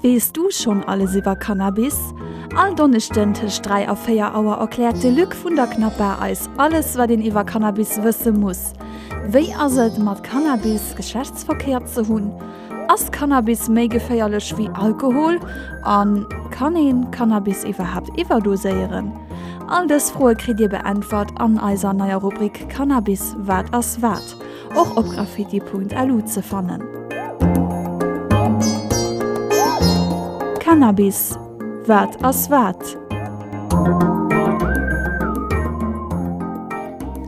Weess du schonn alles iwwer Cannabis? All Donneschden tëscht 3 a 4 Auer erkläert de Luc vun der Knappa eis alles wat een iwwer Cannabis wësse muss. Wéi ass et mat Cannabis Geschlechtsverkéier ze hunn? Ass Cannabis méi geféierlech wéi Alkohol? A kann een Cannabis iwwerhaapt iwwerdoséieren? All dës Froe kritt dir beäntwert an eiser neier Rubrik Cannabis, wat ass wat? Och op graffiti.lu ze fannen. Cannabis, wat ass wat?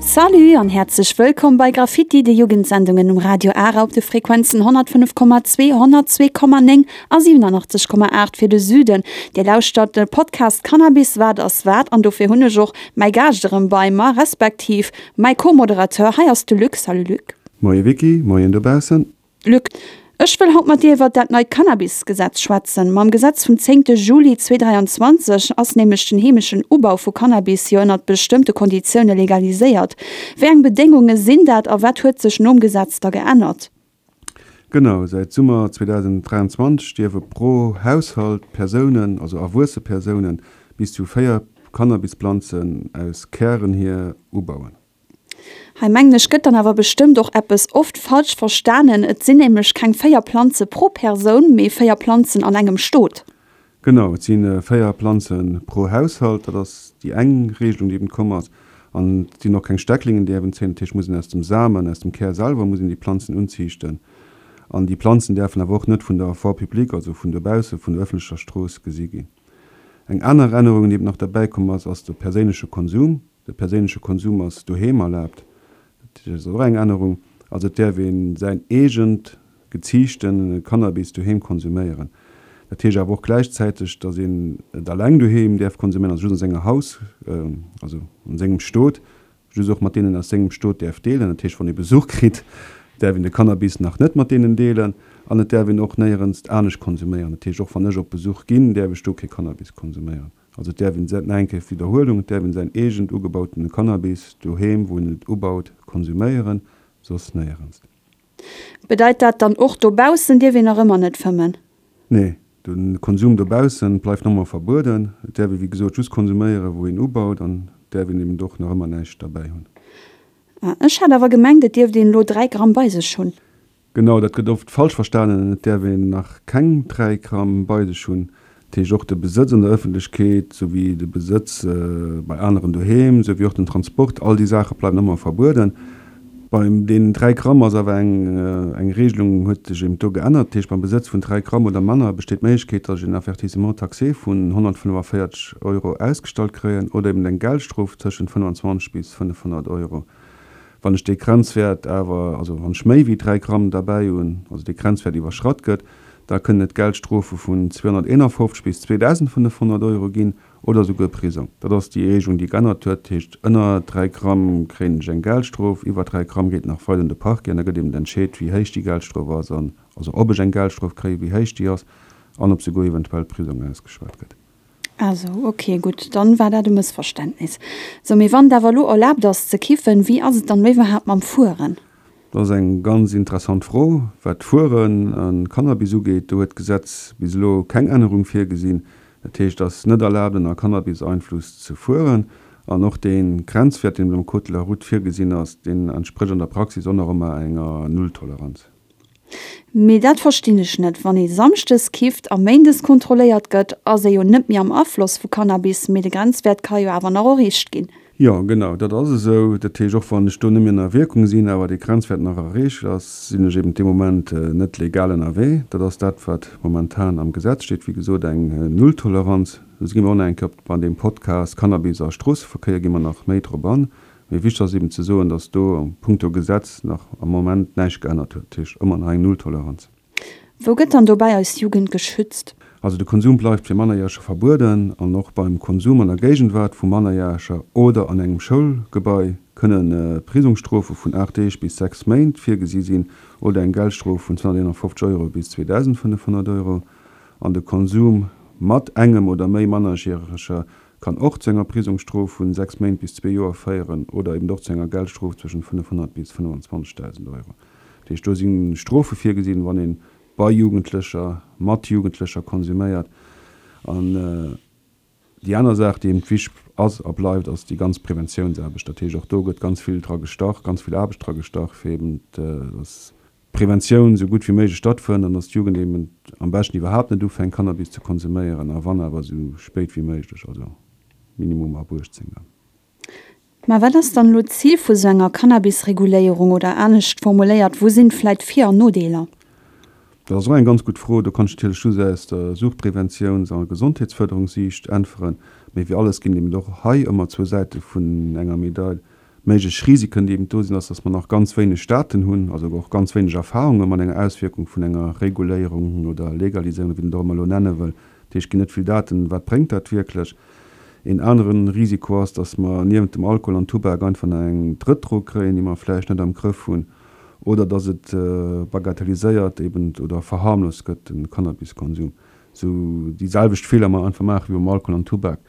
Salut an häerzlech wëllkomm bei Graffiti, de Jugendsendungen um Radio Ara op de Frequenzen 105,2, 102,9 a 87,8 fir de Süden. Dir lauschtert de Podcast Cannabis, wat ass wat? An dofir hunn ech och mäi Gaascht erëm bei mer, respektiv Mäi Co-Moderateur hei ass de Luc. Salut Luc. Moie Vicky, moien dobaussen. Luc, ech wëll haut mat dir iwwert dat neit Cannabis-Gesetz schwätzen. Mam Gesetz vum zéngte Juli 2023 ass nämlech den heemeschen Ubau vu Cannabis jo ënnert bestëmmte Konditioune legaliséiert. Wéi eng Bedéngunge sinn dat a wat huet sech nom Gesetz da geännert? Genau, säit Summer 2023 dierfe pro Haushalt Persounen, also erwuesse Persounen, bis zu 4 Cannabisplanzen aus Kären hier ubauen. Hei mengen ech gëtt dann awer bestëmmt och eppes oft falsch verstanen. Et sinn nämlech keng 4 Planze pro Persoun, mee 4 Planzen an engem Stot. Genau, et si 4 Planze pro Haushalt. Dat ass déi eng Regelung, déi eben komm ass. An et sinn och keng Stecklingen, déi eben zéien. Dat heescht, muss een aus dem Samen, aus dem Kär selwer muss een déi Planzen unziichten. An déi Planzen däerfen awer och net vun der Voie publique, also vun dobausse vun der ëffentlecher Strooss gesi ginn. Eng aner Ännerung, déi eben nach derbäi komm ass, ass de perséinleche Konsum. De perséinleche Konsum ass doheem erlaabt. Dat ass och eng Ännerung. Also et däerf ee säin eegent geziichte Cannabis doheem konsuméieren. Dat heescht awer och gläichzäiteg, datt een et alleng doheem däerf konsuméieren, also just an senger Haus, also an sengem Stot, just och mat deenen aus sengem Stot däerf deelen. Dat heescht, wann ee Besuch kritt, däerf een de Cannabis nach net mat deenen deelen an et däerf een och néierens anescht konsuméieren. Dat heescht, och wann ech op Besuch ginn, däerf ech do kee Cannabis konsuméieren. Also et däerf een, nach eng Kéier Widderhuelung, et däerf een säin eegent ugebautene Cannabis doheem, wou een et ubaut, konsuméieren, soss néierens. Bedeit dat dann och, dobaussen dierf een nach ëmmer net fëmmen? Nee, de Konsum dobaussen bleift nach ëmmer verbueden. Et däerf ee wéi gesot just konsuméieren, wou een ubaut an et däerf een eben och nach ëmmer näischt derbäi hunn. Ah, ech hat awer gemengt, et dierft een elo 3 Gramm bei sech hunn. Genau, dat gëtt oft falsch verstanen. Et däerf een nach keng 3 Gramm bei sech hunn. Dat heescht och de Besëtz an der Ëffentlechkeet, souwéi de Besëtz bei aneren doheem, souwéi och den Transport, all déi Saache bleiwen ëmmer verbueden. Bei deenen 3 Gramm ass awer eng eng Regelung huet sech eben do geännert. Dat heescht beim Besëtz vun 3 Gramm oder manner besteet d'Méiglechkeet, datt ech en Avertissement taxé vun 145 Euro ausgestallt kréien oder eben eng Geldstrof tëschent 25 bis 500 Euro. Wann ech dee Grenzwäert awer, also wann ech méi wéi 3 Gramm derbäi hunn, also dee Grenzwäert iwwerschratt gëtt, da kënnen et Geldstrofe vun 251 bis 2.500 Euro ginn oder souguer Prisong. Dat ass déi Regelung, déi geännert huet. Dat heescht, ënner 3 Gramm kréien ech eng Geldstrof, iwwer 3 Gramm geet nach weider un de Parquet an da gëtt eben entscheet, wéi héich déi Geldstrof ass an, also ob ech eng Geldstrof kréien, wéi héich déi ass an ob souguer eventuell Prisong ausgeschwat gëtt. Ah sou, ok, gutt, dann war dat e Mëssverständnis. Sou, mee wann et awer elo erlaabt ass ze kiffen, wéi ass et dann elo iwwerhaapt mam Fueren? Dat ass eng ganz interessant Fro. Wat d'Fueren a Cannabis ugeet, do huet d'Gesetz bis elo keng Ännerung virgesinn. Dat heescht, et ass net erlaabt ënner Cannabiseinfluss ze fueren. An och dee Grenzwäert, deen am Code de la route virgesinn ass, deen entsprécht an der Praxis och nach ëmmer enger Nulltoleranz. Mee dat verstinn ech net, wann ee Samschdes kifft a Méindes kontrolléiert gëtt, ass ee jo net méi am Afloss vu Cannabis, mee de Grenzwäert ka jo awer nach erreecht ginn. Jo, genau, dat ass esou. Dat heescht, och wann ech do net méi ënner Wierkung sinn, awer dee Grenzwäert nach erreecht ass, sinn ech eben dee Moment net legal ënnerwee. Dat ass dat, wat momentan am Gesetz steet. Wéi gesot, eng Nulltoleranz. Do gi mer och nach eng Kéier op bei deem Podcast Cannabis a Stroosseverkéier gi mer nach méi drop an. Mee wichteg ass eben ze soen, datt do punkto Gesetz nach am Moment näischt geännert huet. Dat heescht ëmmer nach eng Nulltoleranz. Wou gëtt dann dobäi eis Jugend geschützt? Also de Konsum bleift fir Mannerjäreger verbueden an och beim Konsum an der Géigenwaart vu Mannerjäreger oder an engem Schoulgebai kënne Prisongsstrofe vun 8 Deeg bis 6 Méint virgesi sinn oder eng Geldstrof vun 251 Euro bis 2.500 Euro. An de Konsum mat engem oder méi Mannerjäreger Kann och zu enger Prisongsstrof vun 6 Méint bis zwee Joer féieren oder eben och zu enger Geldstrof zwëschen 500 bis 25.000 Euro. Dat heescht, do si Strofe virgesinn, wann een. bei Jugendlecher, mat Jugendlecher konsuméiert. An déi aner Saach, déi eben wichteg ass a bleift, ass déi ganz Preventiounsaarbecht. Dat heescht, och do gëtt ganz vill dra gestach, ganz vill Aarbecht dra gestach, fir eben, dass d'Preventioun esou gutt wéi méiglech stattfënnt an dass d'Jugend eben am beschten iwwerhaapt net ufänkt, Cannabis ze konsuméieren, a wann awer esou spéit wéi méiglech, also minimum ab 18 dann. Mä wat ass dann elo d'Zil vu sou enger Cannabis-Reguléierung oder anescht formuléiert, wou sinn vläit Vir an Nodeeler? Dat ass och eng ganz gutt Fro. Do kann ech natierlech just aus der Suchtpreventiouns a Gesondheetsfërderungssiicht äntweren. Mee wéi alles ginn et eben och hei ëmmer zwou Säite vun enger Medail. Méiglech Risiken, déi eben do sinn, ass, dass mer nach ganz wéineg Daten hunn, also och ganz wéineg Erfahrunge mat enger Auswierkung vun enger Reguléierung oder Legaliséierung, wéi een et och ëmmer elo nenne wëll. Dat heescht, et ginn net vill Daten, wat bréngt dat wierklech. Een anere Risiko ass, dass mer niewent dem Alkohol an Tubak einfach nach eng drëtt Drog kréien, déi mer vläicht net am Grëff hunn, oder dass et bagatelliséiert eben oder verharmlost gëtt, de Cannabiskonsum. Esou déi selwecht Feeler mer einfach maache wéi beim Alkohol an Tubak.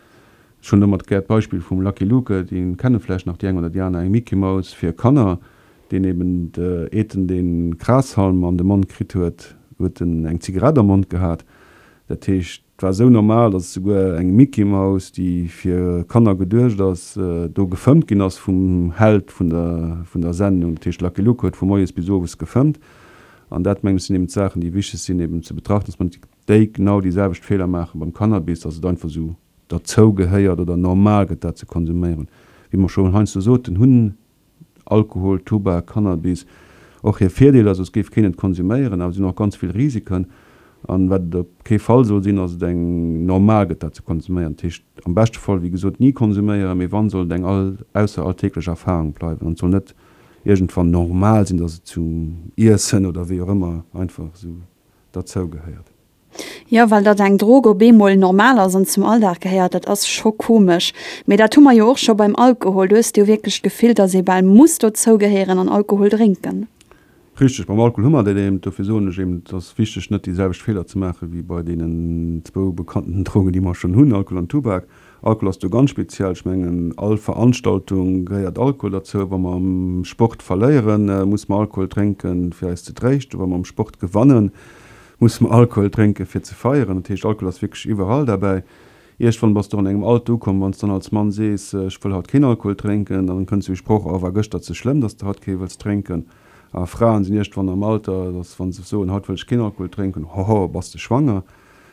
Ech hunn domat gär d'Beispill vum Lucky Luke, dee kenne vläicht nach déi eng oder déi aner, eng Mickey Mouse fir Kanner, deen eben eet en dee Grashalm an de Mond kritt huet, huet en eng Zigarett am Mond gehat. Dat heescht, et war esou normal, datt esouguer eng Mickey Mouse, déi fir Kanner geduecht ass, do gefëmmt ginn ass vum Held vun der vun der Sendung. Dat heescht, Lucky Luke huet vu moies bis owes gefëmmt. An dat, mengen ech, sinn eben d'Saachen, déi wichteg sinn eben ze betrachten, datt mer net déi genau déi selwecht Feeler maache beim Cannabis, datt et einfach esou derzou gehéiert oder normal gëtt, dat ze konsuméieren. Wéi mer scho heiansdo soten, hunn Alkohol, Tubak, Cannabis och hir Virdeeler, soss géif keen et konsuméieren, awer si hunn och ganz vill Risiken. An wat et op kee Fall soll sinn, ass et eng normal gëtt, dat ze konsuméieren. Dat heescht am beschte Fall, wéi gesot, ni konsuméieren, mee wann, soll et eng all ausser alltäglech Erfahrung bleiwen an et soll net iergendwann normal sinn, dass et zum Iessen oder wéi och ëmmer einfach esou derzou gehéiert. Jo, well datt eng Drog op eemol normal ass an zum Alldag gehéiert, dat ass scho komesch. Mee dat hu mer jo och scho beim Alkohol. Do hues de jo wierklech d'Gefill, datt ee bal muss dozou gehéieren an Alkohol drénken. Richteg, beim Alkohol hu mer dat eben. Dofir soen ech eben, et ass wichteg, net déi selwecht Feeler ze maache wéi bei deenen zwou bekannten Drogen, déi mer schonn hunn, Alkohol an Tubak. Alkohol ass do ganz speziell. Ech mengen, all Veranstaltung gehéiert Alkohol derzou. Wa mer am Sport verléieren, musse mer Alkohol drénken, fir eis ze tréischten. Wa mer am Sport gewannen, Musse mer Alkohol drénken fir ze feieren? Dat heescht, Alkohol ass wierklech iwwerall derbäi. Iergwann bass de och an engem Alter ukomm, wann s dann als Mann sees, ech wëll haut keen Alkohol drénken, dann kënnt sou e Sproch, oh war gëschter ze schlëmm, dass de haut kee wëlls drénken. A Fraen sinn iergwann am Alter, dass wa se soen, haut wëll ech keen Alkohol drénken, hoho, bass de schwanger?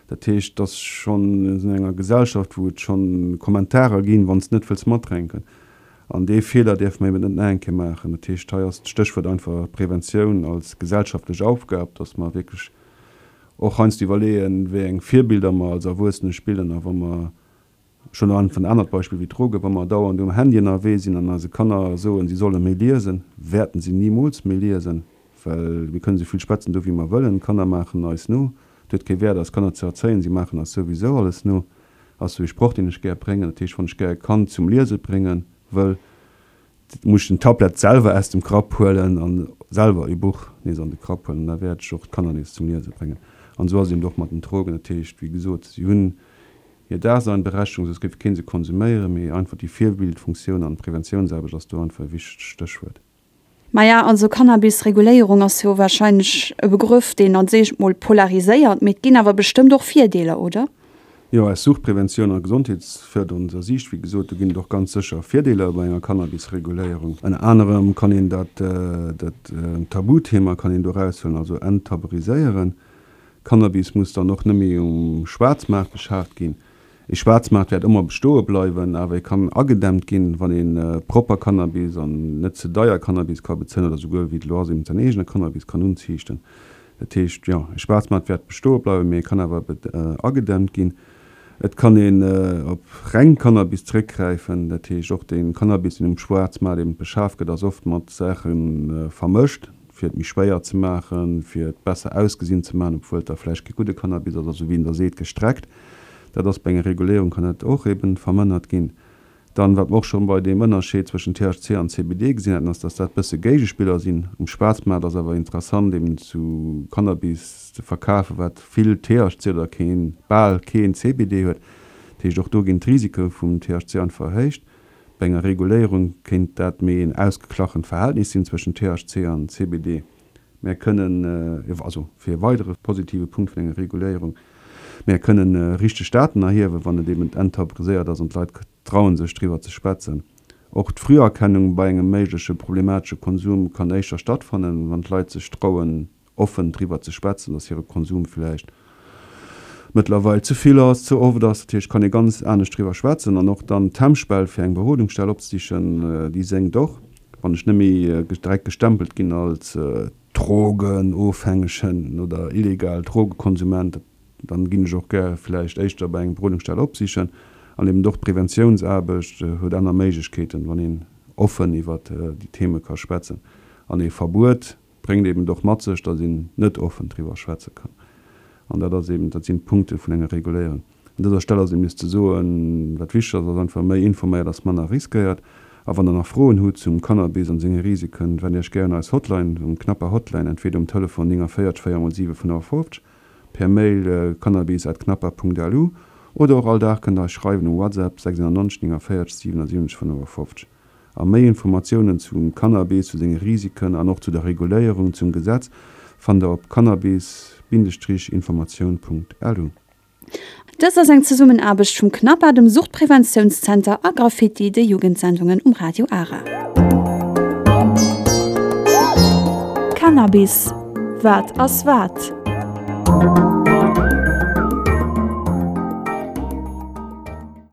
Dat heescht, et ass schonn, mir sinn an enger Gesellschaft, wou et schonn Kommentarer ginn, wann s de net wëlls matdrénken. An dee Feeler däerfe mer eben net nach eng Kéier maachen. Dat heescht, hei ass d'Stéchwuert einfach Preventioun als gesellschaftlech Aufgab, dass mer wierklech och heiansdo iwwerleeën, wéi eng Virbilder mer als Erwuessene spillen. A wa mer, ech hunn einfach en anert Beispill wéi d'Drogen, wa mer dauernd um Handy ënnerwee sinn an eise Kanner soen, si solle méi liesen, wäerten si nimools méi liesen, well mir kënnen esou vill schwätzen do wéi mer wëllen, d'Kanner maachen eis no. Et huet kee Wäert, eis Kanner ze erzéien, si maachen eis souwisou alles no. Ass sou ee Sproch deen ech gär bréngen. Dat heescht wann ech gär e Kand zum Liese brénge wëll, muss ech den Tablett selwer aus dem Grapp huelen an selwer e Buch nees an de Grapp huelen an da wäert ech och d'Kanner nees zum Liese bréngen. An esou ass et eben och mat den Drogen. Dat heescht wéi gesot, si hunn hir Daseinberechtigung, soss géif kee se konsuméieren, mee einfach déi Virbildfunktioun an d'Preventiounsaarbecht ass do einfach e wichtegt Stéchwuert. Maja, also Cannabis-Reguléierung ass jo warscheinlech e Begrëff, deen als éischt mol polariséiert, mee et ginn awer bestëmmt och Virdeeler, oder? Jo, aus Suchtpreventioun a gesondheetsfërderender Siicht, wéi gesot, do ginn et och ganz sécher Virdeeler bei enger Cannabis-Reguléierung. Ënner anerem kann een dat, dat Tabuthema kann een do eraushuelen, also enttabuiséieren. Cannabis muss dann och net méi um Schwaarzmaart beschaaft ginn. Ee Schwaarzmaart wäert ëmmer bestoe bleiwen, awer e kann agedämmt ginn, wann ee propper Cannabis an net ze deier Cannabis ka bezéien oder souguer, wéi et elo ass, eben säin eegene Cannabis kann unziichten. Dat heescht, jo, e Schwaarzmaart wäert bestoe bleiwen, mee e kann awer agedämmt ginn. Et kann een op reng Cannabis zeréckgräifen, dat heescht och dee Cannabis, deen um Schwaarzmaart eben beschaf gëtt, ass oft mat Saache vermëscht, fir et méi schwéier ze maachen, fir et besser ausgesinn ze maachen, obwuel et da vläicht kee gudde Cannabis ass, also wéi een da seet, gestreckt. Dat ass bei enger Reguléierung kann dat och eben vermënnert ginn. Dann, wat mer och schonn bei deem Ënnerscheed zwëschen THC an CBD gesinn haten, ass, dass dat bësse Géigespiller sinn. Um Schwaarzmaart ass awer interessant eben zu Cannabis ze verkafen, wat vill THC oder keen, bal keen CBD huet. Dat heescht, och do ginn d'Risike vum THC einfach erhéicht. Bei enger Reguléierung kéint dat méi een ausgeglachent Verhältnis sinn zwëschen THC an CBD. Mär kënnen, also fir e weidere positive Punkt vun enger Reguléierung, mär kënnen richteg Daten erhiewen, wann et eben enttabuiséiert ass an d'Leit trauen sech driwwer ze schwätzen. Och d'Früherkennung bei engem méigleche problematesche Konsum kann éischter stattfannen, wann d'Leit sech trauen offen driwwer ze schwätzen, dass hire Konsum vläicht mëttlerweil ze vill ass, ze oft ass. Dat heescht, kann ee ganz anescht driwwer schwätzen an och dann d'Hemmschwell fir eng Berodungsstell opzesichen, déi sénkt och, wann ech net méi direkt gestempelt ginn als Drogenofhängegen oder illegal Drogekonsument. Dann ginn ech och gär vläicht éischter bei eng Berodungsstell opsichen. An eben och d'Preventiounsaarbecht huet aner Méiglechkeeten, wann een offen iwwert déi Theme ka schwätzen. An ee Verbuet bréngt eben och mat sech, datt een net offen driwwer schwätze kann. An dat ass eben, dat sinn d'Punkte vun enger Reguléierung. Un dëser Stell ass eben nees ze soen, wat wichteg ass, ass einfach méi informéiert ass manner riskéiert. A wann der nach Froen hutt zum Cannabis an senge Risiken, wennt Iech gär un eis Hotline, um Knapper Hotline, entweder um Telefon 49 4 mol 7 55, per Mail cannabis at knapper.lu oder och all Dag kënnt der eis schreiwen um WhatsApp 690 49 77 55. A méi Informatiounen zum Cannabis, zu senge Risiken an och zu der Reguléierung, zum Gesetz, fannt der op cannabis-informatioun.lu. Dëst ass eng Zesummenaarbecht vum CNAPA, dem Suchtpreventiounszenter a Graffiti, de Jugendsendungen um Radio Ara. Cannabis, Wat ass wat?